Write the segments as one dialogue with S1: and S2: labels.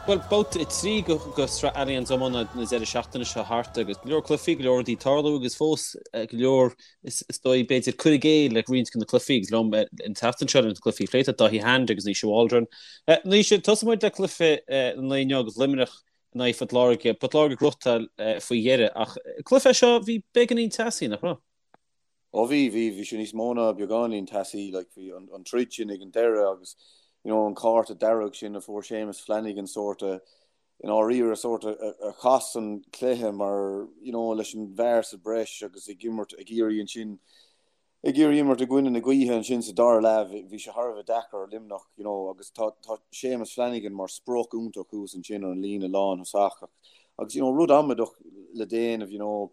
S1: Bhuel, babhta 3 de Shraith Allianz Iomána na deireadh seachtaine seo thart agus go leor cluichí, go leor rudaí ag tarlú agus fós go leor, is dóigh, b'fhéidir, cur i gcéill le roinnt de na cluichí agus liom an tseachtain seo leis na cluichí a phlé tá Dáithí Hand agus Naoise Waldron. Naoise, tosóidh muid le cluiche an lae inniu agus Luimneach in aghaidh Phort Láirge. Port Láirge ag gnóthachtáil faoi dheireadh ach cluiche seo bhí beagáinín teasaí, nach raibh?
S2: Ó bhí, bhí, bhí sé níos mó ná beagáinín teasaí, like bhí an, an troid sin ag an deireadh agus you know an cárta dearg sin a fuair Séamus Flanagan sórt a, i ndáiríre sórt a, a, a chas an cluiche mar you know leis an bhfear sa breis agus ag imirt, ag iarraidh ansin, ag iarraidh imirt i gcoinne na gaoithe ansin sa dara leath, bhí, bhí sé thar a bheith deacair ar Luimneach you know agus tá, tá Séamus Flanagan mar sprioc iontach thuas ansin ar an líne lánthosach agus you know rud amaideach le déanamh you know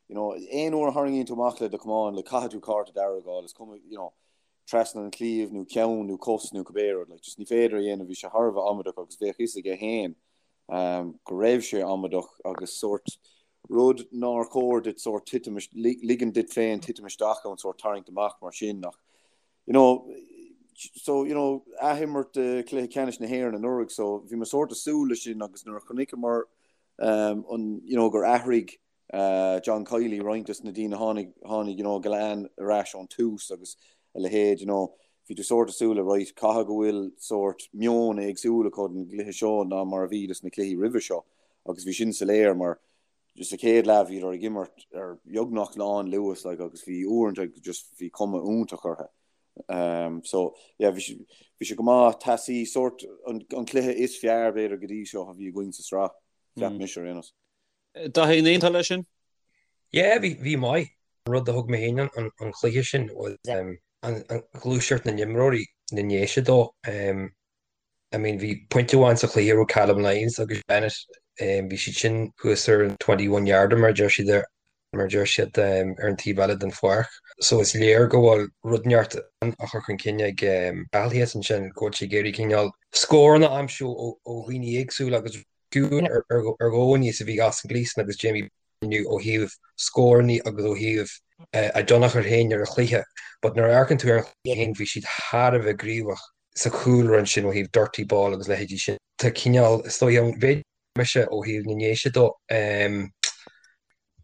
S2: You know, aon uair a tharraingíonn tú amach le do chamán, like, caithfidh tú cárta dearg a fháil, is cuma, you know, trasna an chliabh nó ceann nó cos nó cibé rud, like, just ní féidir a dhéanamh, bhí sé thar a bheith amaideach agus bheadh fhios aige féin um, go raibh sé amaideach agus sórt rud nár chóir duit sórt titim, ligean duit féin titim isteach ann sórt tarraingt amach mar sin ach, you know, so, you know, athimirt de chluiche ceannais na hÉireann anuraidh, so bhí mé sórt ag súil leis sin agus nuair a chonaiceamar um, an, you know, gur athraigh John Kiely, roinnt des na daoine tháinig, tháinig, you know, Gillane ar ais ón tús agus a leithéid, you know, bhí tú sórt ag súil le, right, caithfidh go bhfuil sórt meon éagsúil acu don gcluiche seo ná mar a bhí des na cluichí roimhe seo agus bhí sin soiléir mar just sa chéad leath bhíodar ag imirt ar beagnach lán luas like agus bhí uaireanta just bhí cuma iontach orthu. Um, so yeah, bhí sé, bhí sé go maith teasaí sórt an, an cluiche is fearr b'fhéidir go dtí seo a bhí againn sa sraith, cheap mm. mise ar aon nós.
S1: Dáithí, an aontófá leis sin?
S3: Yeah, bhí, bhí maith. An rud a thug mé féin an, an chluiche sin was um, an, an ghluaiseacht na n-imreoirí na nDéise dó. Um, I mean, bhí pointe amháin sa chluiche a raibh Callum Lyons agus Bennett, um, bhí siad sin thuas ar an 21 yarder mar a deir siad ar, mar a deir siad um, ar an taobh eile den pháirc. So is léir go bhfuil rud inteacht á chur chun cinn ag um, Cathal thíos ansin, go bhfuil sé ag iarraidh cineál scóranna a aimsiú ó, ó dhaoine éagsúla agus Fiú ar dhóigh is a bhí Austin Gleeson agus Jamie inniu ó thaobh scóranna agus ó thaobh a dtionchar féin ar an chluiche but nuair a amharcann tú ar an chluiche féin bhí siad thar a bheith gníomhach sa chúlra ansin ó thaobh dirty ball agus leithéidí sin. Tá cineál, is dóigh, an mhéid mise ó thaobh na nDéise dó,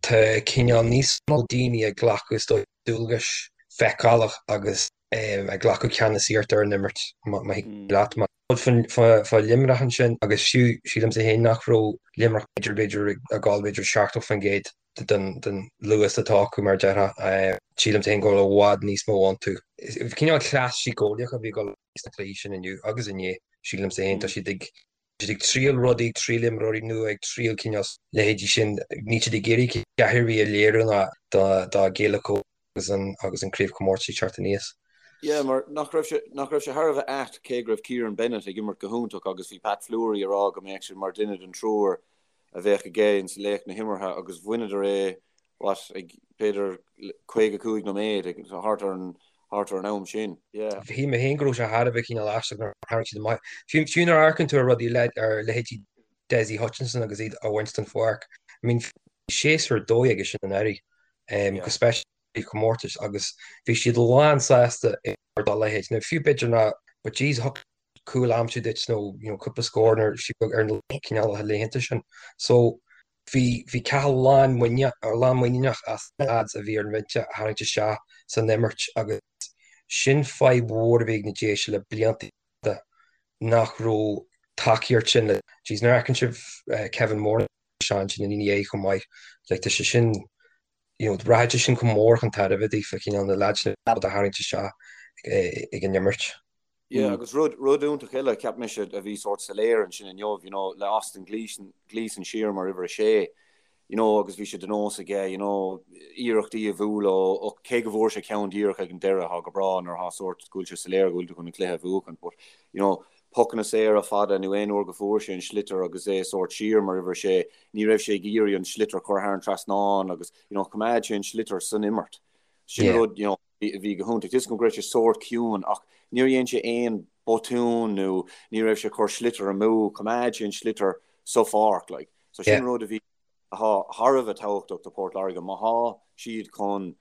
S3: tá cineál níos mó daoine ag glacadh is dóigh dualgais feiceálach agus ag glacadh ceannasaíocht ar an imirt má thig leat. Rud fá Luimneach ansin agus fiú sílimse féin nach raibh Luimneach b'fhéidir b'fhéidir ag gabháil b'fhéidir 70% den luas atá acu mar a déarfá. Sílimse féin go bhfuil i bhfad níos mó iontu. Cineál cleas síceolaíoch a bhí ag dul sna cluichí sin inniu agus inné, sílimse féin. Tá siad ag siad ag triail rudaí, ag triail imreoirí nua, ag triail cineál leithéidí sin. Níl siad ag iarraidh a dhath ar bith a léiriú ná dá gcéile agus an agus an craobhchomórtas ag teacht aníos.
S2: Yeah, mar nach raibh sé, nach raibh sé thar a bheith ait cé go raibh Kieran Bennett ag imirt go hiontach agus bhí Pat Fleury ag rá go mbeadh sé mar duine den triúr a bheadh aige ins laoch na himeartha agus bhaineadar é, what, ag b'fhéidir 55 nóiméad, ag thart ar an, thart ar an am sin.
S3: Yeah. Shíl mé féin go raibh sé thar a bheith cineál aisteach nuair a tharraing siad amach. Fiú, fiú nuair a amharcann tú ar rudaí le, ar leithéidí Dessie Hutchinson agus iad a bhaint den pháirc, I mean, bhí séasúr dóigh aige sin anuraidh. go speisialta i gcomórtais agus bhí siad lán sásta ar dá leithéid. Now fiú b'fhéidir ná but jeez thiocfadh cúl a aimsiú duit nó you know cúpla scór nuair fiú ar na cineálacha laethanta sin. So bhí bhí Cathal lán lán muiníneach as na lads a bhí ar an bhinse a tharraingt isteach san imirt agus sin fadhb mhór a bhí ag na Déise le blianta fada nach raibh tacaíocht sin le jeez nuair a fheiceann sibh Kevin Moran ansin ina dhiaidh chomh maith. Like tá sé sin, you know, rachaidh sé sin chomh mór chun tairbhe daofa, cineál na lads sin a tharraingt isteach ag an imirt.
S2: Yeah, agus rud, rud iontach eile, cheap mise, a bhí sórt soiléir ansin inniu, you know, le Austin Gleeson, Gleeson siar mar uimhir a sé, you know, agus bhí sé de nós aige, you know, iarrachtaí a bhualadh ó, cé go bhfuair sé ceann díreach ag an deireadh, tá go breá nuair atá sórt go bhfuil sé soiléir go bhfuil tú chun an cluiche a bhuachan, but, you know, pocanna saora fada nó aon uair go fuair sé an sliotar agus é sórt siar mar uimhir a sé, ní raibh sé ag iarraidh an sliotar a chur thar an trasnán agus, you know, choimeád sé an sliotar san imirt. Sin Yeah. rud, you know, a bhí go hiontach. Tá 'fhios agam go raibh sé sórt ciúin ach níor dhein sé aon botún nó ní raibh sé ag cur sliotar amú, choimeád sé an sliotar sa pháirc, like. So sin Yeah. rud a bhí atá thar a bheith tábhachtach do Port Láirge má thá siad chun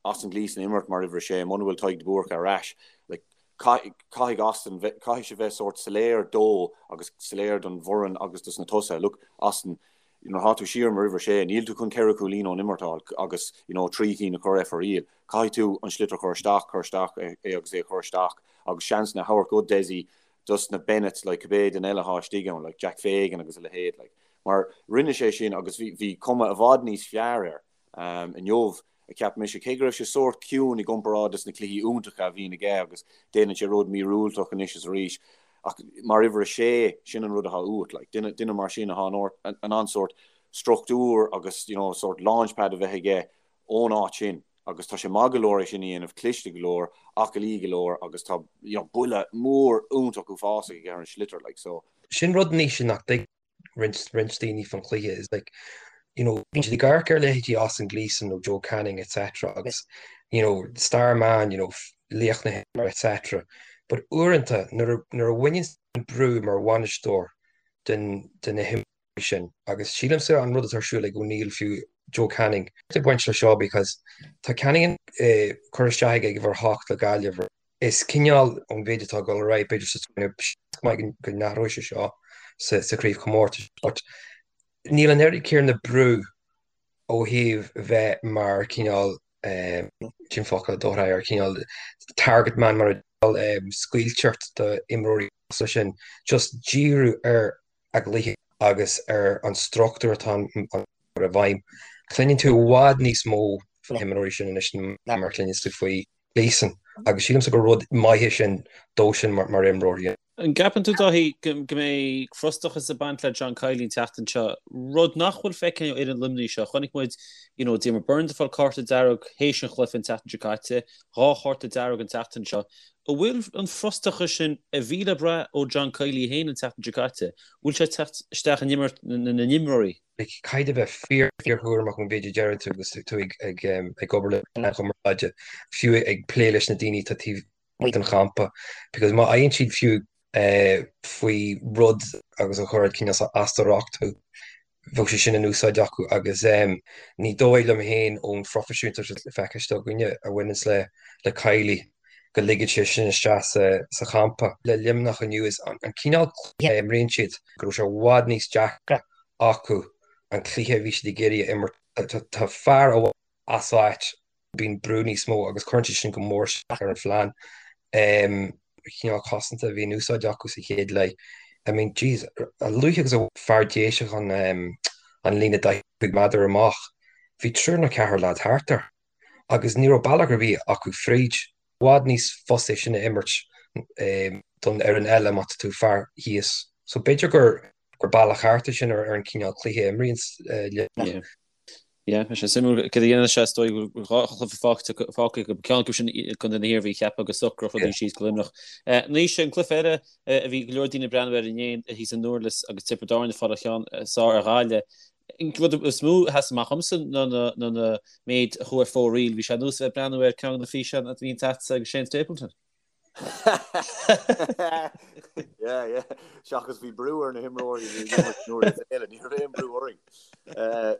S2: Austin Gleeson a imirt mar uimhir a sé, muna bhfuil Tadhg de Búrca ar ais, like. Caithfidh Austin, caithfidh sé bheith sórt soiléir dó agus soiléir don bhfoireann agus dos na tosaithe, look, Austin, nuair atá tú siar mar uimhir a sé, níl tú chun ceithre chúilín ón imirt a fháil agus, you know, trí cinn a chur ar Fear Aoil. Caithfidh tú an sliotar a chur isteach, cur isteach é agus é a chur isteach agus seansanna a thabhairt do Dessie, dos na Bennetts, like, cibé duine eile atá istigh ann, like, Jack Fagan agus a leithéid, like. Mar rinne sé sin agus bhí, bhí cuma i bhfad níos fearr air inniu. a cheap mise, cé go raibh sé sórt ciúin i gcomparáid leis na cluichí iontacha a bhíonn aige agus déanann sé rud míorúilteach anois is arís, ach mar uimhir a sé, sin an rud atá uait, like, duine, duine mar sin atá in ann sórt struchtúr agus, you know, sórt launchpad a bheith aige ón áit sin agus tá sé maith go leor é sin a dhéanamh, cliste go leor, aclaí go leor agus tá, you know, buille mór iontach uafásach aige ar an sliotar, like, so.
S3: Sin rud anois nach dtuigeann roinnt roinnt daoine faoin chluiche is like you know bíonn siad ag amharc ar leithéidí Austin Gleeson nó Joe Canning etc agus you know star man you know laoch na himeartha etc but uaireanta nuair a nuair a bhaineann an brú mar bhainisteoir den de na himreoirí sin agus sílimse an rud atá ar siúl ag O'Neill fiú Joe Canning ag baint le seo because tá Canning eh, cur isteach aige ag uimhir a hocht le Gaillimh Is cineál ón mhéid atá ag dul ar aghaidh, b'fhéidir sa seans maith go n-athróidh sé seo sa chraobhchomórtas but níl an oiread céanna brú ó thaobh bheith mar cineál sin focal a d'fhóirfeadh ar cineál target man mar a scaoilteacht do imreoirí sin just díriú ar a gcluiche agus ar an struchtúr atá i bhfeidhm. Cluineann tú i bhfad níos mó faoi na himreoirí sin anois ná mar a chluineann tú faoi Gleeson agus sílimse gur rud maith é sin dó sin mar imreoir.
S1: An gceapann tú, Dáithí, go mbeidh frustrachas ag baint le John Kiely an tseachtain seo, rud nach bhfuil feicthe ó fhoireann Luimnigh seo? Chonaic muid you know, Diarmaid Byrnes ag fáil cárta dearg théis an chluiche an tseachtain seo caite, dhá chárta dearg an tseachtain seo. An bhfuil an frustrachas sin a bhí le brath ó John Kiely féin an tseachtain seo caite, bhfuil sé ag teacht isteach in imirt na n-imreoirí?
S3: Caithfidh tú bheith fíor fíorchúramach ón mhéid a deireann tú agus tú ag ag ag obair le meáin chumarsáide, fiú ag plé leis na daoine atá taobh amuigh den champa, because má fhaigheann siad fiú faoi rud agus a chuirfeadh cineál as do riocht thú, bheadh sé sin in úsáid acu agus ní dóigh liom féin ón phroifisiúntacht atá feicthe againne a bhaineanns le le Kiely go ligfeadh sé sin isteach sa champa. Le Luimneach inniu is an cineál cluiche a imríonn siad go raibh sé i bhfad níos deacra acu an cluiche a bhí siad ag iarraidh a imirt. Tá fear amháin as áit, bíonn brú níos mó agus cuireann sé sin go mór isteach ar an phlean. Cineál cosanta a bhí in úsáid acu sa chéad leath. I mean, jeez, a luaithe agus a bhain fear Déiseach an an líne 45 méadar amach, bhí triúr nó ceathrar leaid thart air agus ní raibh bealach ar bith acu fríd. I bhfad níos fusa é sin a imirt don fhoireann eile má tá tú fear thíos. So b'fhéidir gur gur bealach ceart é sin ar an cineál cluiche a imríonn
S1: Luimneach. Yeah, beidh sé suimiúil cad a dhéanann sé, is dóigh go bhfuil dhá chluiche fágtha acu, ceann acu sin i gcontae na hIarmhí, cheapfá go socródh rudaí síos go Luimneach. Anois, an cluiche eile a bhí go leor daoine ag breathnú air inné thíos i nDurlas agus Tiobraid Árann ag fáil an cheann is fearr ar Ghaillimh. An rud is mó a sheas amach dhomsa ná an méid a chuaigh ar fóraoil. Bhí sé ar nós a bheith ag breathnú ar ceann de na físeáin a bhíonn agatsa agus Shane Stapleton.
S2: Yeah, yeah. Seachas bhí brú ar na himreoirí a bhí ag imirt nuair is eile, ní raibh aon brú orainn. Eh,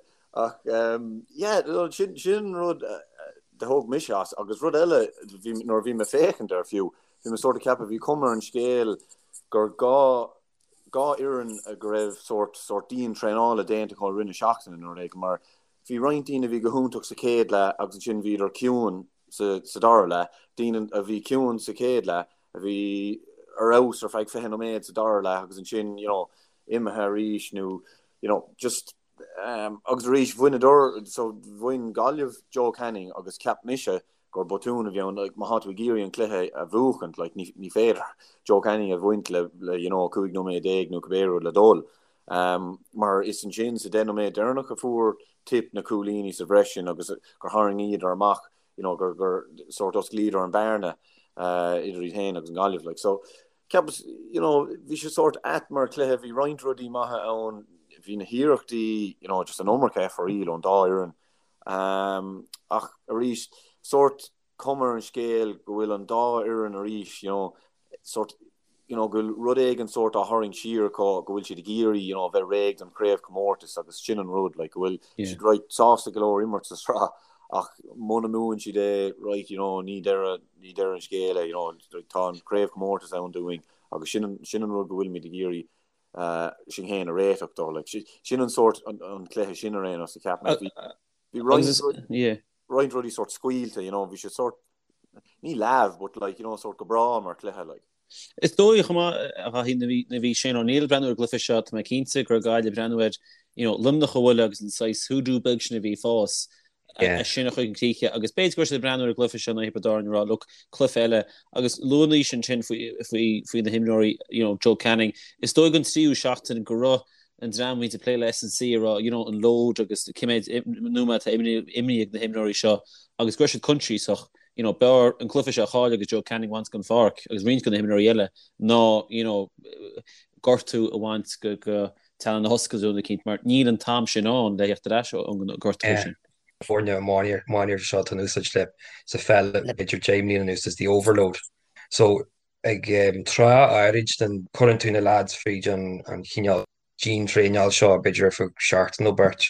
S2: ach um, yeah, no, sin, sin rud eh, a thóg mise as agus rud eile bhí, nuair a bhí mé ag féachaint air fiú, bhí mé sort of ceapadh bhí cuma ar an scéal gur dhá dhá fhoireann go raibh sort sort dian traenála déanta acu i rith na seachtaine nó rud éigin mar bhí roinnt daoine a bhí go hiontach sa chéad leath agus ansin bhíodar ciúin sa sa dara leath, daoine a bhí ciúin sa chéad leath, a bhí ar fheabhas ar feadh 20 nóiméad sa dara leath agus ansin, you know, imithe arís nó, you know, just um, agus arís bhaineadar, so bhain Gaillimh Joe Canning agus cheap mise gur botún a bhí ann, like, má tá tú ag iarraidh an cluiche a bhuachaint, like, ní, ní féidir Joe Canning a bhaint le, le, you know, 15 nóiméad nó cibé rud le dul. Um, mar is ansin sa 10 nóiméad deireanach a fuair Tip na cúilíní sa bhreis sin agus gur tharraingíodar amach, you know, gur, gur sort osclaíodar an bearna uh, idir iad féin agus an Gaillimh. Like, so, ceapas, you know, bhí sé sort ait mar chluiche, bhí roinnt rudaí maithe ann, bhí na hiarrachtaí, you know, just an iomarca foraoil ón dá fhoireann. Um, ach arís, sort cuma ar an scéal go bhfuil an dá fhoireann arís, you know, sort you know, go bhfuil rud éigin sórt á tharraingt siar acu, go bhfuil siad ag iarraidh, you know, bheith réidh don chraobhchomórtas agus sin an rud, like, go bhfuil siad right sásta go leor imirt sa sraith. Ach muna mbuann siad é, right, you know, ní deireadh, ní deireadh an scéil é, you know, tá an craobhchomórtas ann dúinn agus sin an, sin an rud go bhfuilimid ag iarraidh sinn féin a réiteach dó. Like, sin an sórt, an cluiche sin ar aon nós, a cheap mé. Bhí, bhí roinnt, roinnt rudaí sórt scaoilte, you know, bhí sé sórt, ní leamh, but like, you know, sórt go breá mar chluiche, like.
S1: Is dóigh chomh maith, a Dhaithí, nuair a bhí Shane O'Neill ag breathnú ar an gcluiche seo, tá mé cinnte go raibh Gaillimh ag breathnú ar, you know, Luimneach a bhualadh agus an saghas hoodoo beag sin a bhí ag fás, é sin a chur chun críche agus b'fhéidir go raibh siad ag breathnú ar an gcluiche seo in aghaidh Thiobraid Árann ag rá, look, cluiche eile agus luaigh Naoise ansin faoi, faoi, faoi na himreoirí, you know, Joe Canning. Is dóigh an tríú seachtain go raibh an dream a bhíonns ag plé le S&C ag rá, you know, an load agus cé mhéad nóiméad atá imrithe ag na himreoirí seo agus go raibh siad coinsiasach, you know, b'fhearr an cluiche seo a chailleadh agus Joe Canning a bhaint den pháirc agus roinnt de na himreoirí eile ná, you know, gortú a bhaint go, go teannán na hoscailte nó rud eicínt mar níl an t-am sin ann le theacht ar ais ón ngortú sin.
S3: Foirne iománaíochta seo atá in úsáid le sa pheil b'fhéidir 10 mbliana anuas is the overload. So ag tráth áirid den cuireann tú na lads fríd an chineál dian-traenáil seo b'fhéidir ar feadh seachtain nó beirt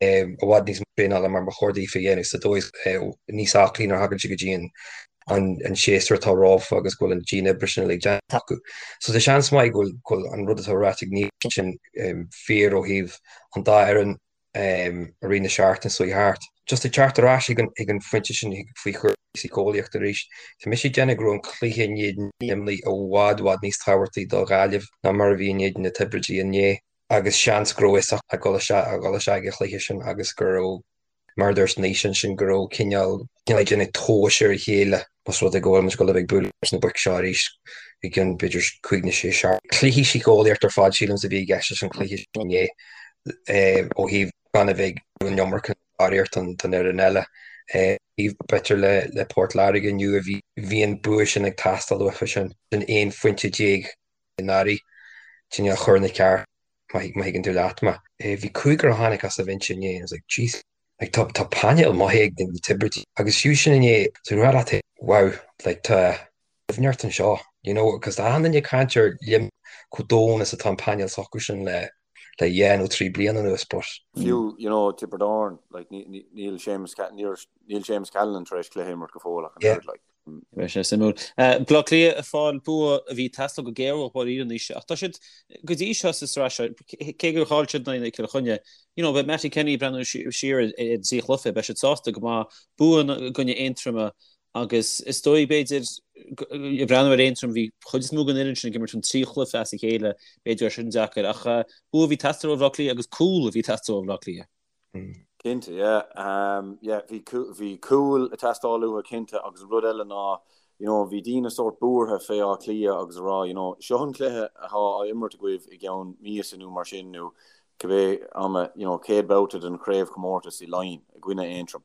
S3: i bhfad níos mó traenála mar ba chóir daofa a dhéanamh sa dóigh is níos aclaí nuair a thagann siad go dtí an séasúr atá rompu agus go bhfuil an dian-oibre sin uilig déanta acu. So tá seans maith go bhfuil an rud atá ráite ag Naoise sin fíor ó thaobh an dá fhoireann i rith na seachtaine seo thart. Just ag teacht ar ais ag an phointe sin faoi chúrsaí síceolaíochta arís, tá mise ag déanamh go raibh an cluiche in éadan Luimnigh i bhfad, bhfad níos tábhachtaí do Ghaillimh ná mar a bhí in éadan na Tiobraidigh inné. Agus seans go raibh fhios acu ag dul isteach, ag dul isteach ag an chluiche sin agus go raibh, mar a dúirt Naoise ansin, go raibh cineál, cineál ag déanamh tomhais ar a chéile más rud é go bhfuil muid ag dul a bheith ag bualadh leis na boic seo arís i gcionn b'fhéidir cúig nó sé seachtain. Cluiche síceolaíochta ar fad sílimse a bhí i gceist leis an chluiche sin inné ó thaobh gan a bheith ag an iomarca barraíocht don fhoireann eile. B'fhéidir le Port Láirge inniu a bhí an bua sin ag teastáil uafa sin, sin 11 phointe anuraidh, cineál a chur ina ceart má thuigeann tú leat mé. Bhí cúigear a tháinig as an bhinse inné and I was like jeez like tá tá painéal maith ag na Tiobraidigh agus fiú sin inné so rá leat wow like tá doimhneacht anseo you know because tá achan duine ag caint ar Luimneach chomh domhain is atá an painéal s'acu sin le le dhá nó trí bliana anuas but
S2: Fiú you know Tiobraid Árann like níl Séamus níl Séamus Callanan tar éis cluiche a imirt go fóill ach an
S1: oiread like. Beidh sé suimiúil. Baile Átha Cliath ag fáil bua a bhí ag teastáil go géar uathu dáiríre anois ach tá siad go dtí seo sa sraith seo, cé gur chaill siad in aghaidh Chill Chainnigh, you know, beidh Mattie Kenny ag breathnú siar ar an trí chluiche, beidh siad sásta go maith bua i gcoinne Aontroma agus is dóigh b'fhéidir ag breathnú ar Aontroim bhí chuid is mó den fhoireann sin ag imirt an trí chluiche as a chéile, b'fhéidir gur sin deacair ach bua a bhí ag teastáil ó Bhaile Átha Cliath agus cúl a bhí ag teastáil ó Bhaile Átha Cliath.
S2: Cinnte, yeah. Yeah, bhí bhí cúl ag teastáil uathu cinnte agus an rud eile ná, you know, bhí daoine sórt buartha fé Áth Cliath agus a rá, you know, seo an cluiche atá á imirt agaibh i gceann míosa nó mar sin nó cibé ama, you know, chéad babhta den chraobhchomórtas i Laighin i gcoinne Aontroim.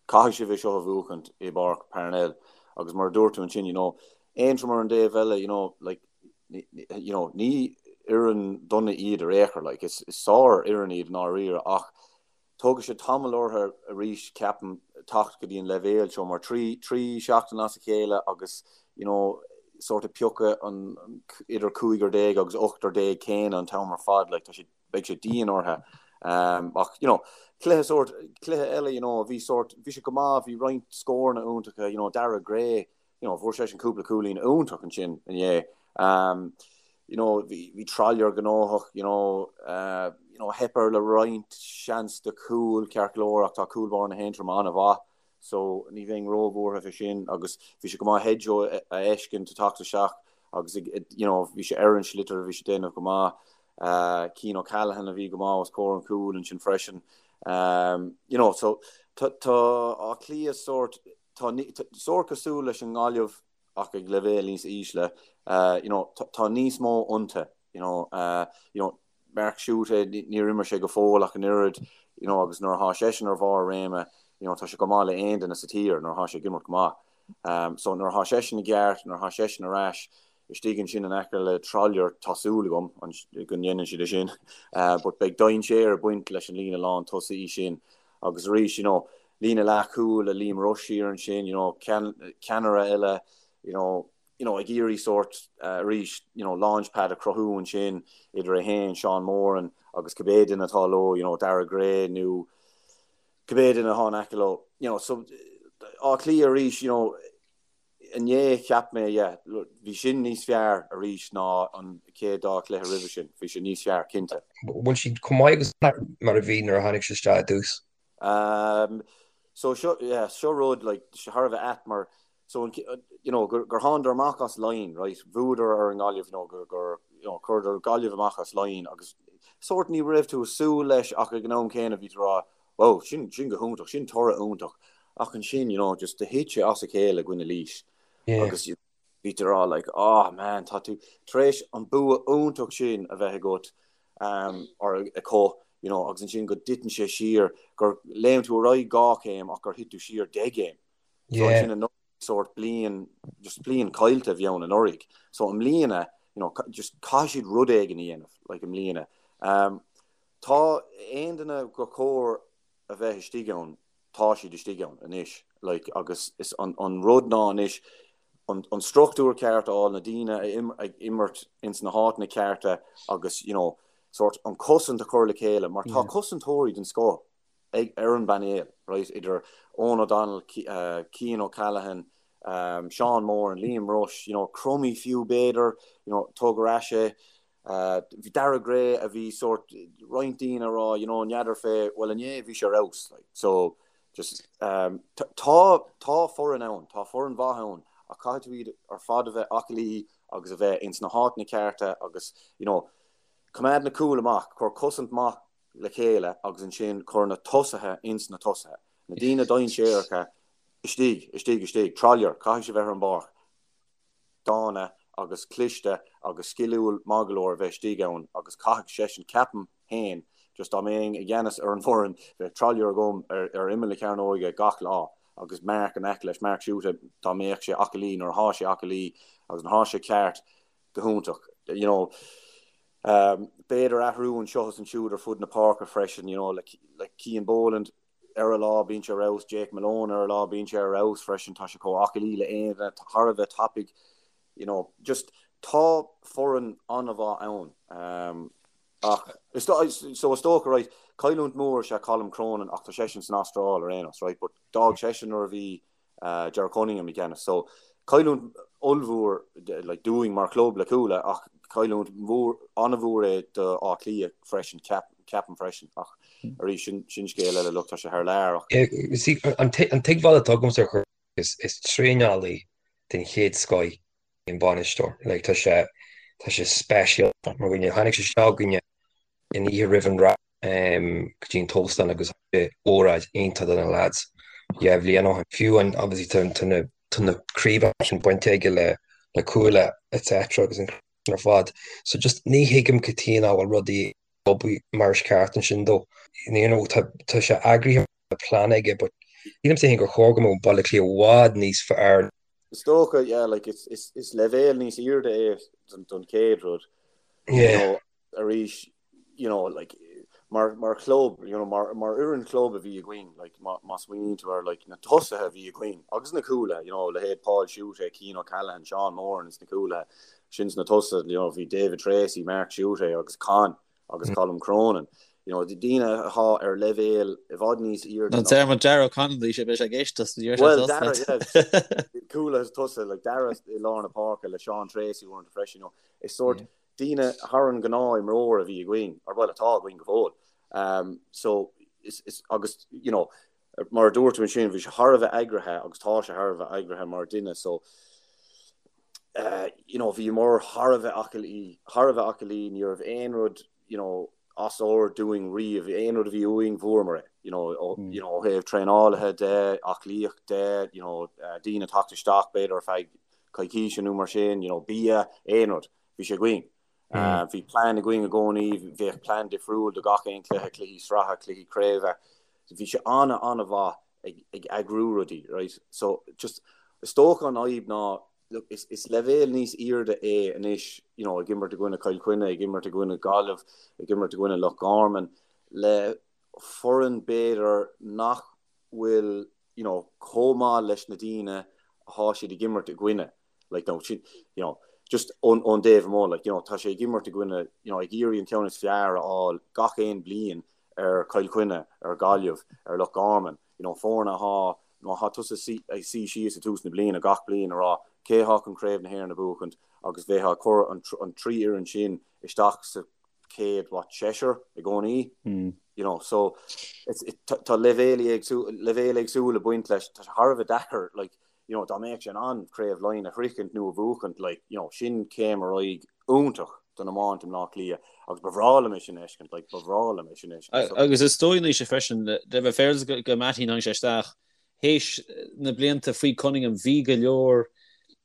S2: Caithfidh sibh é seo a bhuachaint i bPáirc Parnell agus mar a dúirt tú ansin, you know, Aontroim ar an dtaobh eile, you know, like, you know, ní fhoireann dona iad ar aon chor, like, is sár-fhoireann iad i ndáiríre ach tógfaidh sé tamall orthu arís, ceapaim, teacht go dtí an leibhéal seo mar trí, trí seachtain as a chéile agus, you know, sort of piocadh an idir cúigear déag agus ochtar déag céanna an t-am ar fad, like, tá sé beidh sé dian orthu. Ach, you know, cluiche sórt, cluiche eile, you know, bhí sórt, bhí sé go maith, bhí roinnt scóranna iontacha, you know, Darragh Gray, you know, fuair seisean cúpla cúilín iontach ansin inné. Um, you know, bhí, bhí Trollier gnóthach, you know, uh, you know, theip air le roinnt seans de chúl ceart go leor ach tá cúl báire na hAontroma an-mhaith. So ní bheinn róbhuartha fé sin agus bhí sé go maith Hedjo a fheiscint ag teacht isteach agus you know bhí sé ar an sliotar bhí sé ag déanamh go maith. Cian O'Callaghan a bhí go maith os comhair an chúil ansin freisin. You know so tá Áth Cliath sórt tá sórt cosúil leis an nGaillimh ach ag leibhéal níos ísle. You know tá níos mó iontu you know you know Mark Schutte, níor imir sé go fóill ach an oiread, you know, agus nuair atá seisean ar bharr a réime, you know, tá sé chomh maith le aon duine sa tír nuair atá sé ag imirt go maith. Um, so nuair atá seisean i gceart, nuair atá seisean ar ais, istigh ansin in aice le Trollier, tá súil agam go ndéanann siad é sin, uh, but beidh dainséar ag baint leis an líne lán tosaí sin. Agus arís, you know, líne leathchúil le Liam Rushe thiar ansin, you know, ceannaire eile, you know, you know, ag iarraidh sórt arís, you know, launch pad a chruthú ansin idir é féin, Seán Moran agus cibé duine atá leo, you know, Darragh Gray nó cibé duine atá in aice leo. you know, so Áth Cliath arís, you know, inné cheap mé, yeah, bhí sin níos fearr arís ná an chéad dá chluiche roimhe sin, bhí sé níos fearr, cinnte.
S3: Bhfuil siad chomh maith agus mar a bhí nuair a tháinig sé isteach i dtús?
S2: Um, so seo, yeah, seo rud, like, thar a bheith ait mar, so, an, you know, gur, gur thánadar amach as Laighin, right, bhuadar ar an nGaillimh, you know, gur, gur, you know, chuireadar Gaillimh amach as Laighin agus sórt ní raibh tú ag súil leis ach ag an am céanna bhí tú ag rá, Wow, sin, sin go hiontach, sin toradh iontach. Ach ansin, you know, just do thit sé as a chéile i gcoinne Laois.
S3: Yeah.
S2: Agus bhí tú ag rá like, oh man, tá tú tar éis an bua iontach sin a bheith agat um, or acu, you know, agus ansin go dtiteann sé siar, gur léim tú ar aghaidh dhá chéim ach gur thit tú siar deich gcéim. So
S3: Yeah.
S2: ansin anuraidh sórt bliain, just bliain caillte a bhí ann anuraidh. So i mbliana, you know, just caithfidh siad rud éigin a dhéanamh, like i mbliana. Um, Tá aon duine gur chóir a bheith istigh ann, tá siad istigh ann anois, like, agus is an, an rud ná anois an, an struchtúr ceart a fháil, na daoine a im, ag imirt ins na háiteanna cearta agus, you know, sórt an cosaint a chur le chéile, mar tá cosantóirí den scoth ag, ar an bpainéal, right, idir Eoghan O'Donnell, Cian O'Callaghan, um, Seán Moran, Liam Rushe, you know, Crummey fiú b'fhéidir, you know, tóg ar ais é, Bhí Daire Gray a bhí sórt roinnt daoine ag rá you know n'fheadar fé bhuel inné bhí sé ar fheabhas like so just um, tá tá foireann ann tá foireann mhaith ann ach caithfidh tú iad ar fad a bheith aclaí agus a bheith ins na háiteanna cearta agus you know coimeád na cúil amach cuir cosaint maith le chéile agus ansin cuir na tosaithe ins na tosaithe na daoine dainséaracha istigh istigh istigh Trollier caithfidh sé bheith ar an bpáirc dána agus cliste agus sciliúil maith go leor a bheith istigh ann agus caithfidh seisean, ceapaim féin, just dá mbeinn i gceannas ar an bhfoireann, bheadh Trollier agam ar ar imeall na cearnóige gach lá agus Mark in aice leis, Mark Schutte, dá mbeadh sé aclaí nuair atá sé aclaí agus nuair atá sé ceart, go hiontach. You know, um, b'fhéidir athrú anseo is ansiúd ar fud na páirce freisin, you know, le, le Cian Boland, Ar a lá bíonn sé ar fheabhas, Jake Malone ar a lá bíonn sé ar fheabhas freisin, tá sé chomh aclaí le aon duine, thar a bheith tapaidh, you know, just tá foireann an-mhaith ann. Um, ach is so is dócha, right, cailliúint mór is ea Colm Cronin ach tá seisean san Astráil ar aon nós, right, but d'fhág seisean nuair a bhí Ger Cunningham i gceannas. So, cailliúint ollmhór like, dúinn mar chlub le Cuala ach cailliúint mhór, an-mhór é do Áth Cliath freisin, ceapaim freisin. Ach arís, sin, sin scéal eile, look, tá sé thar lear ach.
S3: See, an tuigbheáil atá agamsa ar is, is traenálaí den chéad scoth an bainisteoir. Like, tá sé, tá sé speisialta mar dhuine. Tháinig sé isteach chugainne an oíche roimh an rá. go dtí an t-óstán agus óráid iontach do na lads dhá bhliain ó shin. Fiú an obviously tá na tá na craobhacha sin bainte aige le le Cuala etc agus an ar fad. So just ní thuigim cad chuige nach bhfuil rudaí ag obair mar is ceart ansin dó. You know tá tá sé eagraithe tá plean aige but sílimse féin gur chóir go mbeadh Baile Átha Cliath i bhfad níos fearr.
S2: Is dócha yeah like is is is leibhéal níos airde é don don chéad rud.
S3: Yeah.
S2: You know arís you know, like, mar, mar chlub, you know, mar, mar fhoireann chlub a bhí againn, like, má, má smaoiníonn tú ar, like, na tosaithe a bhí againn, agus na cúlaithe, you know, leithéid Paul Schutte, Cian O'Callaghan, Seán Moran ins na cúlaithe, sin sna tosaithe, you know, bhí David Treacy, Mark Schutte agus Con agus Colm Cronin, you know, daoine atá ar leibhéal i bhfad níos airde
S1: ná. Deir Dara O'Connell, bhí sé, beidh sé ag éisteacht, ní raibh sé
S2: Well,
S1: tosaithe.
S2: Dara, yeah, cúlaithe is tosaithe, like, Dara i lár na páirce le Seán Treacy uaireanta freisin, you know, is sórt,
S1: Yeah.
S2: daoine thar an ngnáth-imreoir a bhí againn, or bhuel, atá againn go fóill. Um, so, is, is, agus, you know, mar a dúirt tú ansin, bhí sé thar a bheith eagraithe agus tá sé thar a bheith eagraithe mar duine, so, uh, you know, bhíomar thar a bheith aclaí, thar a bheith aclaí, ní raibh aon rud, you know, as ord dúinn riamh, aon rud a bhí uainn, bhfuaireamar é, you know, ó, mm. you know, ó thaobh traenálaithe de, aclaíocht de, you know, uh, daoine teacht isteach b'fhéidir ar feadh coicíse nó mar sin, you know, bia, aon rud. Bhí sé againn. Bhí plean againn i gcónaí, bheadh plean difriúil do gach aon cluiche, cluichí sraithe, cluichí craoibhe. Bhí sé an-an-mhaith ag ag eagrú rudaí, right? So just is dócha an fhadhb ná look, is is leibhéal níos airde é anois, you know, ag imirt i gcoinne Chill Chainnigh, ag imirt i gcoinne Gaillimh, ag imirt i gcoinne Loch Garman, le foireann b'fhéidir nach bhfuil, you know, chomh maith leis na daoine atá siad ag imirt i gcoinne. Like, no, sin, you know, just ón, ón dtaobh amuigh, like, you know, tá sé ag imirt i gcoinne, you know, ag iarraidh an ceann is fearr a fháil gach aon bliain ar Chill Chainnigh, ar Gaillimh, ar Loch Garman, you know, foirne atá, Má thá tusa ag suí síos ag tús na bliana gach bliain ag rá cé thá chun Craobh na hÉireann a bhuachaint agus bheifeá ag cur an 3 fhoireann sin isteach sa chéad, what, seisear i gcónaí, you know, so it's, it, tá leibhéil éagsúil, leibhéil éagsúil ag baint leis, tá sé thar a bheith deacair, like, you know, dá mbeadh sé in ann Craobh Laighean a shroichint nó a bhuachaint, like, you know, sin céim ar aghaidh iontach don iomáint i mBleá Cliath agus ba bhreá liom é sin a fheiscint, like, ba bhreá liom é sin a fheiscint.
S1: So. Agus is dóigh Naoise freisin, le bheith féaráilte go Mattie tháinig sé isteach, théis na blianta faoi Cunningham bhí go leor,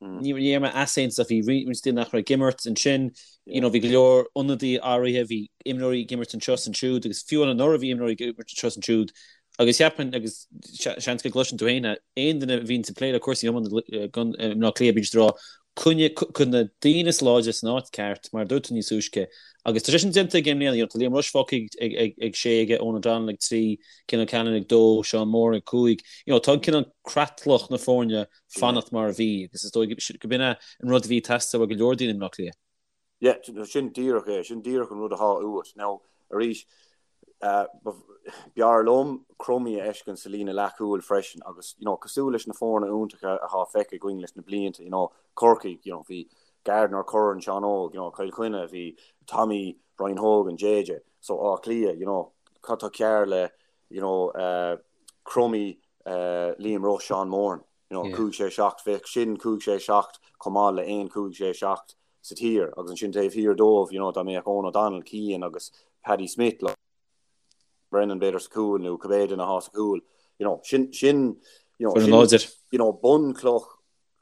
S1: ní raibh mé easaontas ach bhí roinnt daoine nach raibh ag imirt ansin, you know, bhí go leor ionadaí athraithe, bhí imreoirí ag imirt anseo is ansiúd agus fiú anuraidh bhí imreoirí ag imirt anseo is ansiúd Agus cheapfainn, agus seans go gcloiseann tú féin é, aon duine a bhíonns ag plé le cúrsaí iomána i mBleá Cliath, bíonn siad ag rá, coinnigh, cuir na daoine is láidre san áit ceart, mar a dúirt tú níos túisce. Agus tá sé sin déanta aige i mbliana, you know, tá Liam Rushe fágtha ag, ag, ag sé aige, Eoghan O'Donnell ag 3, Cian O'Callaghan ag 2, Seán Moran ag 5. You know, tá an cineál creatlach na foirne fanacht mar a bhí, agus is dóigh go b'in é an rud a bhí ag teastáil ó go leor daoine i mBleá Cliath.
S2: Yeah, sin díreach é, sin díreach an rud athá uait. Now, arís, b'fhearr liom Crummey a fheiscint sa líne leathchúil freisin agus, you know, cosúil leis na foirne iontacha athá feicthe againn leis na blianta, you know, Corcaigh, you know, bhí Gardiner, Curran, Seán Óg, you know, Cill Chainnigh, bhí Tommy, Brian Hogan, JJ, so Áth Cliath, you know, cad tá cearr le, you know, Crummey, Liam Rushe, Seán Moran, you know, 5, 6, 7, bheadh sin 5, 6, 7 chomh maith le 1, 5, 6, 7 sa tír agus ansin taobh thiar dóibh, you know, dá mbeadh Eoghan O'Donnell, Cian agus Paddy Smith, like, Brennan b'fhéidir sa chúl nó cibé duine athá sa chúl, you know, sin, sin, you know,
S1: Foireann láidir.
S2: you know, bunchloch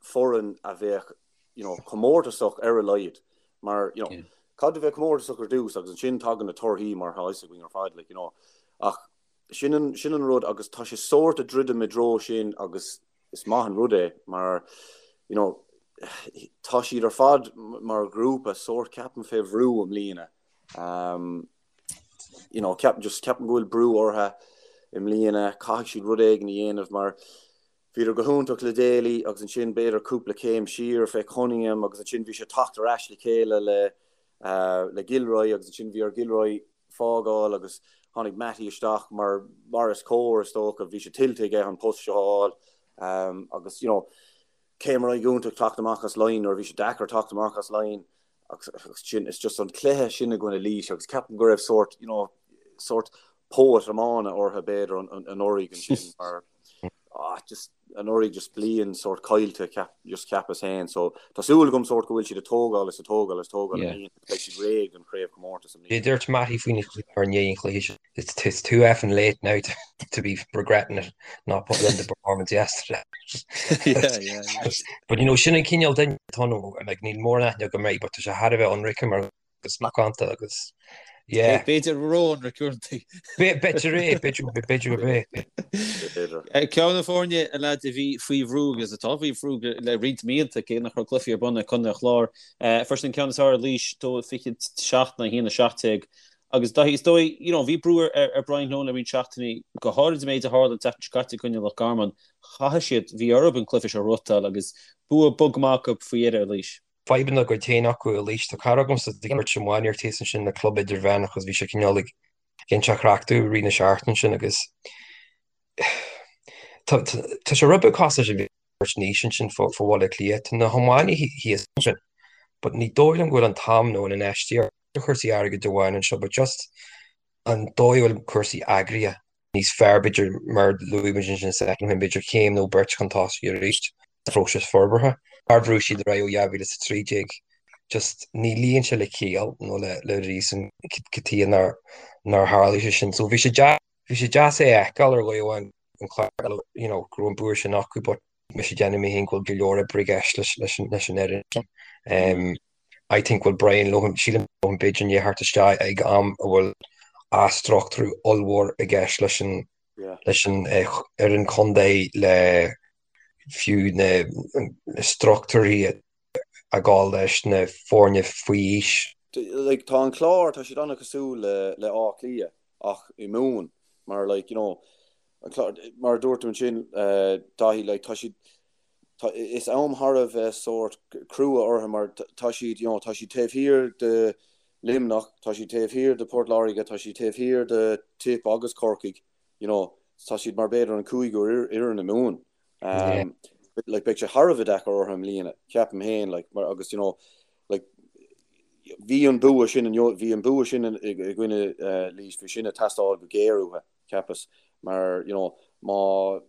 S2: foireann a bheadh, you know, comórtasach ar a laghad mar, you know, Yeah. caithfidh tú bheith comórtasach ar dtús agus ansin tagann na torthaí mar tá fhios againn ar fad, like, you know, ach sin an, sin an rud agus tá sé sórt ag druidim i dtreo sin agus is maith an rud é mar you know tá siad ar fad mar ghrúpa sórt ceapaim fé bhrú i mbliana. Um, you know, ceapaim just ceapaim go bhfuil brú orthu i mbliana, caithfidh siad rud éigin a dhéanamh mar bhíodar go hiontach le Daly agus ansin b'fhéidir cúpla céim siar fé Cunningham agus ansin bhí sé teacht ar ais le chéile le uh, le Gilroy agus ansin bhí ar Gilroy fágáil agus tháinig Mattie isteach mar mar is cóir is dócha, bhí sé tuillte aige an post seo a fháil agus you know céim ar aghaidh iontach teacht amach as Laighin nuair a bhí sé deacair teacht amach as Laighin agus sin it's just an cluiche sin i gcoinne Laois agus ceapaim go raibh sórt you know sórt póit iomána orthu b'fhéidir anuraidh ansin mar ah just anuraidh just bliain sórt caillte ceap just cheapas féin so tá súil agam sórt go bhfuil siad ag tógáil is ag tógáil is tógáil i mbliana beidh siad réidh don chraobhchomórtas i mbliana.
S3: Dúirt Mattie faoin ar ndiaidh an chluiche sin it's it's too effing late now to, to be regretting it not putting in the performance yesterday.
S1: Yeah, yeah, yeah.
S3: But you know sin an cineál duine atá ann like níl mórán aithne agam air but tá sé thar a bheith ionraice mar agus macánta agus
S1: yeah. B'fhéidir ró-ionraic uaireanta.
S3: B'fhéidir é, b'fhéidir gurb é.
S1: B'fhéidir. Ceann de na foirne, a leaids, a bhí faoi bhrú agus atá faoi bhrú le roinnt míonna, cé nach raibh cluichí ar bun ag Contae an Chláir. Fuair siad an ceann is fearr ar Laois, 2-27 in aghaidh 1-17. Agus Daithí, is dóigh, you know, bhí brú ar Brian Lohan le roinnt seachtainí, go háirid an méid a tharla an tseachtain seo caite i gcoinne Loch Garman. Chaithfidh siad, bhí orthu an cluiche seo a ghnóthachtáil agus bua bog maith acu faoi dheireadh ar Laois.
S3: fadhbanna dá gcuid féin acu i Laois. Tá cara agamsa ag imirt iománaíocht thíos ansin le club idirmheánach agus bhí sé cineál ag inse a chraic domh i rith na seachtaine sin agus tá sé rud beag cosúil leis an bheirt Naoise ansin fá Bhaile Átha Cliath. Tá na hiománaithe thíos ansin but ní dóigh liom go bhfuil an t-am nó an infheistíocht ar chúrsaí airgid amháin anseo but just an dóigh a bhfuil cúrsaí eagraithe níos fearr, b'fhéidir, mar a luaigh muid ansin soicind ó shin, b'fhéidir céim nó beirt chun tosaigh arís sa phróiseas forbartha. Mar bhrúigh siad ar aghaidh ó 2013, just ní luíonn sé le ciall nó le réasún cad chuige nár nár tharlaigh sé sin. So bhí sé deas, bhí sé deas é a fheiceáil ar dhóigh amháin an Clár, you know, go raibh an bua sin acu but mise ag déanamh mé féin go bhfuil go leor oibre i gceist leis leis an leis an fhoireann sin. Um, I think bhfuil Brian Lohan, sílim b'fhéidir i ndiaidh theacht isteach ag am a bhfuil athstruchtúrú ollmhór i gceist leis an leis an fhoireann contae le fiú na struchtúirí ag gabháil leis na foirne faoi aois.
S2: Like tá an Clár, tá siad an-chosúil le le Áth Cliath ach i Mumhan mar like you know an Clár mar a dúirt tú ansin Daithí like tá siad Tá, is am thar a bheith sórt crua orthu mar tá siad, you know, tá siad taobh thiar de Luimneach, tá siad taobh thiar de Port Láirge, tá siad taobh thiar de Tip agus Corcaigh, you know. tá siad mar b'fhéidir an cúigiú fhoireann i Mumhan. Um, like, beidh sé thar a bheith deacair orthu i mbliana, ceapaim féin, like, mar, agus, you know, like, bhí an bua sin, bhí an bua sin i gcoinne uh, Laois, bhí sin ag teastáil go géar uathu, cheapas, mar, you know, má,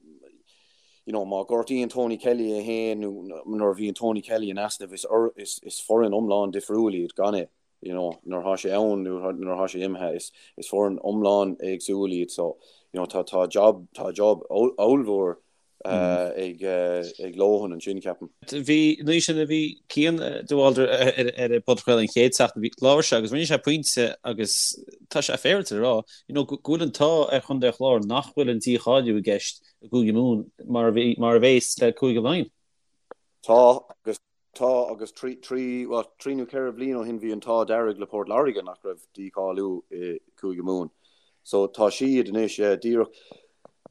S2: you know, má gortaíonn Tony Kelly é féin nó nuair a bhíonn Tony Kelly in easnamh, is, is, is foireann iomlán difriúil iad gan é. you know, nuair atá sé ann nó nuair atá sé imithe, is, is foireann iomlán éagsúil iad so, you know, tá, tá job, tá job ollmhór uh, ag, uh, ag Lohan ansin, ceapaim.
S1: Bhí, nuair sin a bhí Cian de Bhaldraithe ar, ar an bpodchraoladh an chéad seachtain, bhí, labhair sé agus rinne sé pointe agus tá sé féaráilte a rá, you know, go bhfuil an t-ádh ar Chontae an Chláir nach bhfuil an dícháiliú i gceist i gCúige Mumhan mar a bhí, mar a bhéas le Cúige Laighean.
S2: Tá, agus Tá, agus trí, trí, bhuel, trí nó ceithre bhliain ó shin bhí an t-ádh dearg le Port Láirge nach raibh dícháiliú i Cúige Mumhan. So tá siad anois, yeah, díreach,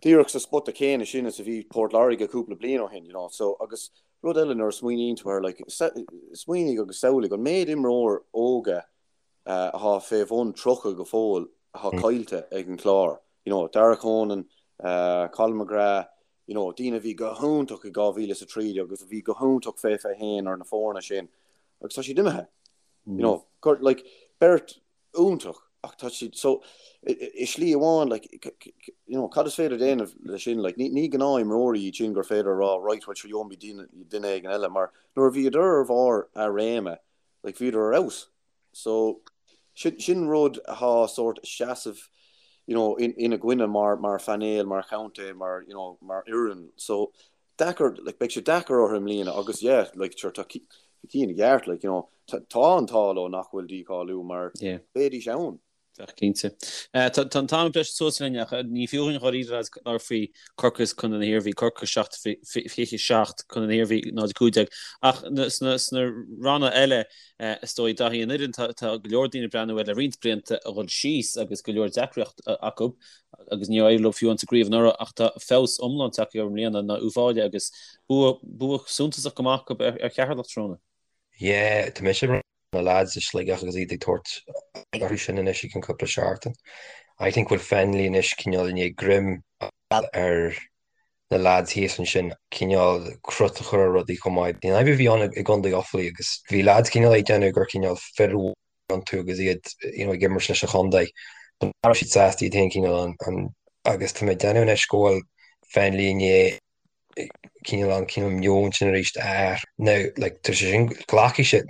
S2: díreach sa spota céanna sin is a bhí Port Láirge cúpla bliain ó shin, you know. So, agus rud eile nuair a smaoiníonn tú air, like, smaoinigh agus samhlaigh an méid imreoir óga atá fé bhun 30 go fóill atá caillte ag an Chlár, you know, Darragh Conan, Colin McGrath, you know, daoine a bhí go hiontach i 2013 agus a bhí go hiontach fé 21 ar na foirne sin agus tá siad imithe. You know, gur, like, beirt iontach ach tá siad, so, i slí amháin, like, you know, cad is féidir déanamh le sin, like, ní, ní gnáth-imreoirí iad sin gur féidir a rá, right, well, sure, gheobhaimid duine, duine éigin eile, mar nuair a bhíodar ar bharr a réime, like, bhíodar ar fheabhas. So, sin, sin rud atá sórt seasamh, you know, in, ina gcoinne mar, mar phainéal, mar chontae, mar, you know, mar fhoireann. So, deacair, like, beidh sé deacair orthu i mbliana agus, yeah, like, sure, tá Cian i gceart, like, you know, tá, tá an t-ádh leo nach bhfuil dícháiliú mar
S1: Yeah.
S2: bheidís ann.
S1: Bheadh, cinnte. Tá an t-am ag briseadh suas linn ach ní fiú dhúinn dháiríre lads labhairt faoi Corcaigh is Contae na hIarmhí, Corcaigh 7, 27, Contae na hIarmhí 0, 15. Ach sna ranna eile, is dóigh, Daithí, an fhoireann, tá go leor daoine ag breathnú air le roinnt blianta a dhul síos agus go leor deacracht acu agus níor éirigh leo fiú amháin sa gcraobh anuraidh ach tá feabhas iomlán tagtha orthu i mbliana ná Uíbh Fhailí agus bua bua suntasach go maith acu ar Cheatharlach tráthnóna.
S3: Yeah, tá mise na lads i Sligeach agus iad ag tabhairt orthu sin anois i gcionn cúpla seachtain. I think bhfuil Fennelly anois cineál i ndiaidh greim a fháil ar na lads thíos ansin, cineál crot a chur ar rudaí chomh maith. An fhadhb a bhí ann i gContae Offaly agus bhí lads cineál ag déanamh gur cineál fir iontu agus iad you know ag imirt leis an chontae. Ní raibh siad sásta iad féin cineál an, an agus tá mé ag déanamh anois go bhfuil Fennelly i ndiaidh cineál an cineál meon sin arís a athrú. Now, like, tá sé sin, glacfaidh sé,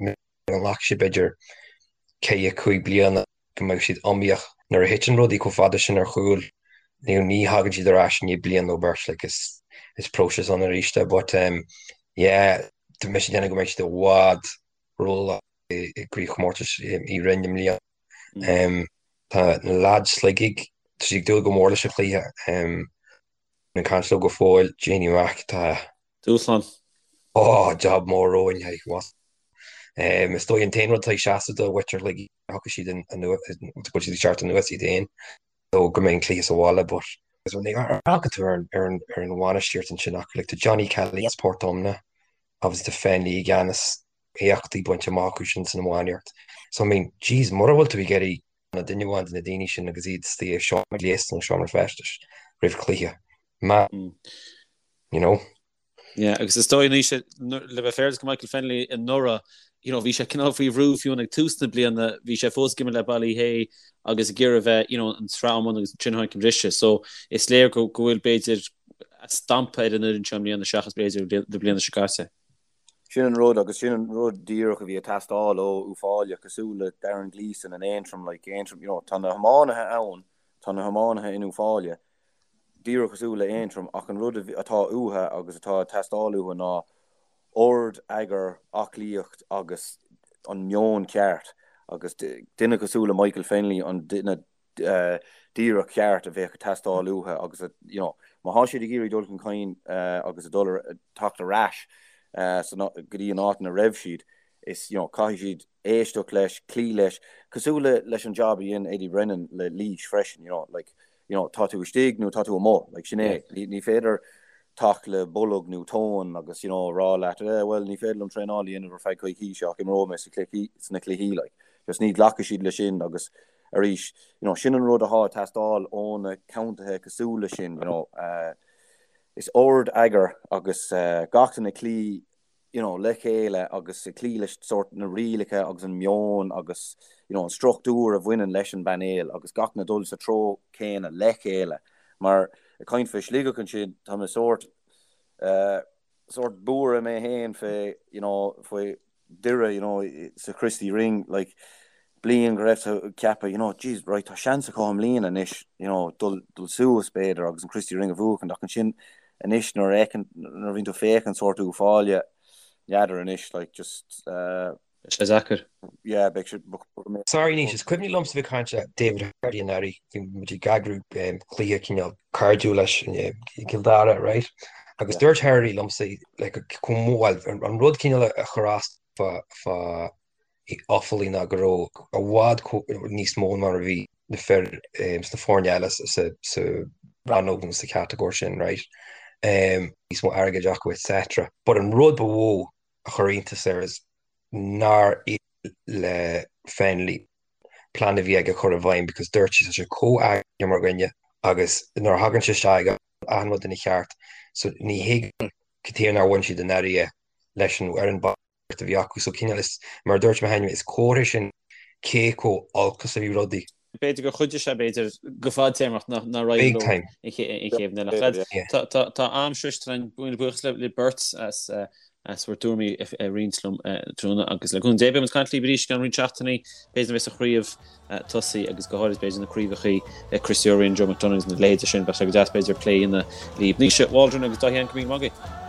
S3: nglacfaidh sé b'fhéidir ceithre, cúig bliana go mbeidh siad iomaíoch. Nuair a thiteann rudaí chomh fada sin ar chúl, you know, ní thagann siad ar ais i ndiaidh bliain nó beirt, like, is, is próiseas ann arís é. But, um, yeah, tá mise ag déanamh go mbeidh siad i bhfad rómhaith i gcraobhchomórtas Uí Rinn i mbliana. Um, tá na lads Shligigh, tá siad ag dúil go mór leis an chluiche. Um, Ag caint leo go fóill, Jamie Mack, tá.
S1: Dúshlán.
S3: Ó, jab mór romhainn, hey, what? Is dóigh an t-aon rud atá ag seasamh do mhuintir Shligigh, thiocfaidh siad anuas, go bhfuil siad ag teacht anuas iad féin, nó go mbeidh an cluiche sa bhaile, but amharcann tú ar an ar an bhainistíocht ansin acu, like tá Johnny Kelly as Port Omna, obviously tá Fennelly i gceannas, éachtaí bainte amach acu sin san iománaíocht. So I mean, jeez, mura bhfuil tú ag iarraidh ná duine amháin de na daoine sin agus iad istigh i seomra gléasta nó seomra feistis roimh chluiche. Ma, you know.
S1: Yeah, agus is dóigh anois le bheith fair do Michael Fennelly anuraidh, you know, bhí sé cineál faoi bhrú fiú ag tús na bliana, bhí sé fós ag imirt le Ballyhea agus ag iarraidh bheith, you know, an tsraith iomána agus ansin tháinig an briseadh. So is léir go go bhfuil b'fhéidir stampa ar an fhoireann seo i mbliana seachas b'fhéidir na bliana seo caite.
S2: Sin an rud, agus sin an rud díreach a bhí ag teastáil ó Uíbh Fhailí, cosúil le Darren Gleeson in Aontroim, like Aontroim, you know, tá na hiománaithe ann, tá na hiománaithe in Uíbh Fhailí, díreach cosúil le Aontroim, ach an rud atá uathu agus atá ag teastáil uathu ná ord, eagar, aclaíocht agus an meon ceart, agus duine cosúil le Michael Fennelly an duine díreach ceart a bheadh ag teastáil uathu agus you know má thá siad ag iarraidh dul chun cinn agus a dul ar teacht ar ais go dtí an áit ina raibh siad is you know caithfidh siad éisteacht leis, cloí leis, cosúil le leis an job a dhein Eddie Brennan le Laois freisin you know like you know tá tú istigh nó tá tú amuigh like sin é ní féidir teacht le bolg nó tóin agus you know rá leat eh well ní féidir liom traenáil a dhéanamh ar feadh coicíse ach imreoidh mé sa chluichí sna cluichí like just ní ghlacfaidh siad leis sin agus. Arís, you know, sin an rud athá ag teastáil ó na contaetha cosúil le sin, you know, is ord eagar agus gach duine ag cloí, you know, le chéile agus ag cloí leis sórt na rialacha agus an meon agus, you know, an struchtúr a bhaineann leis an bpainéal agus gach duine ag dul sa treo céanna le chéile. Mar ag caint fé Sligeach ansin, tá mé sórt, eh, sórt buartha mé féin fé, you know, faoi Doire, you know, sa Christy Ring, like, bliain go raibh tú ag ceapadh, you know, jeez, right, tá seans acu i mbliana anois, you know, dul, dul suas, b'fhéidir, agus an Christy Ring a bhuachan, ach ansin anois nuair a fheiceann, nuair a bhíonn tú ag féachaint sórt Uíbh Fhailí, n'fheadar anois, like, just, uh,
S1: Beidh sé deacair.
S2: Yeah, beidh sé,
S3: Sorry Naoise, is cuimhin liomsa bheith ag caint le David Herity anuraidh, bhí muid ag eagrú cluiche cineál cairdiúil leis i gCill Dara, right? Agus dúirt Herity liomsa like chomh mór, bhuel, an rud cineál a chuir as fá fá Offaly ná go raibh i bhfad níos mó ná mar a bhí na fir sna foirne eile sa rannóg nó sa chatagóir sin, right? Níos mó airgid acu etc. But an rud ba mhó a chuir iontas air is nár éirigh le Fennelly plean a bhí aige a chur i bhfeidhm because dúirt sé tá sé chomh eagraithe mar dhuine agus nuair a thagann sé isteach ag achan rud ina cheart so ní thuigim cad chuige nár bhain siad anuraidh é leis an fhoireann a bhí acu. So cineál is, mar a dúirt mé cheana, is comhartha sin cé chomh olc is a bhí rudaí.
S1: B'fhéidir gur chuidigh sé, b'fhéidir, go fadtéarmach nach raibh leo an chéad bhliain. Ach lads, tá am sroiste againn, míle buíochas libh beirt as as bhur dtuairimí a roinnt liom tráthnóna agus le cúnamh Dé beidh muid ag caint libh arís i gceann roinnt seachtainí, b'fhéidir nuair a bheas an chraobh tosaithe agus go háirid b'fhéidir na craobhacha Christy O'Riordan, Joe McDonagh agus na leithéide sin, bheadh sé go deas b'fhéidir plé a dhéanamh libh. Naoise Waldron agus Dáithí Ann, go raibh míle maith agaibh.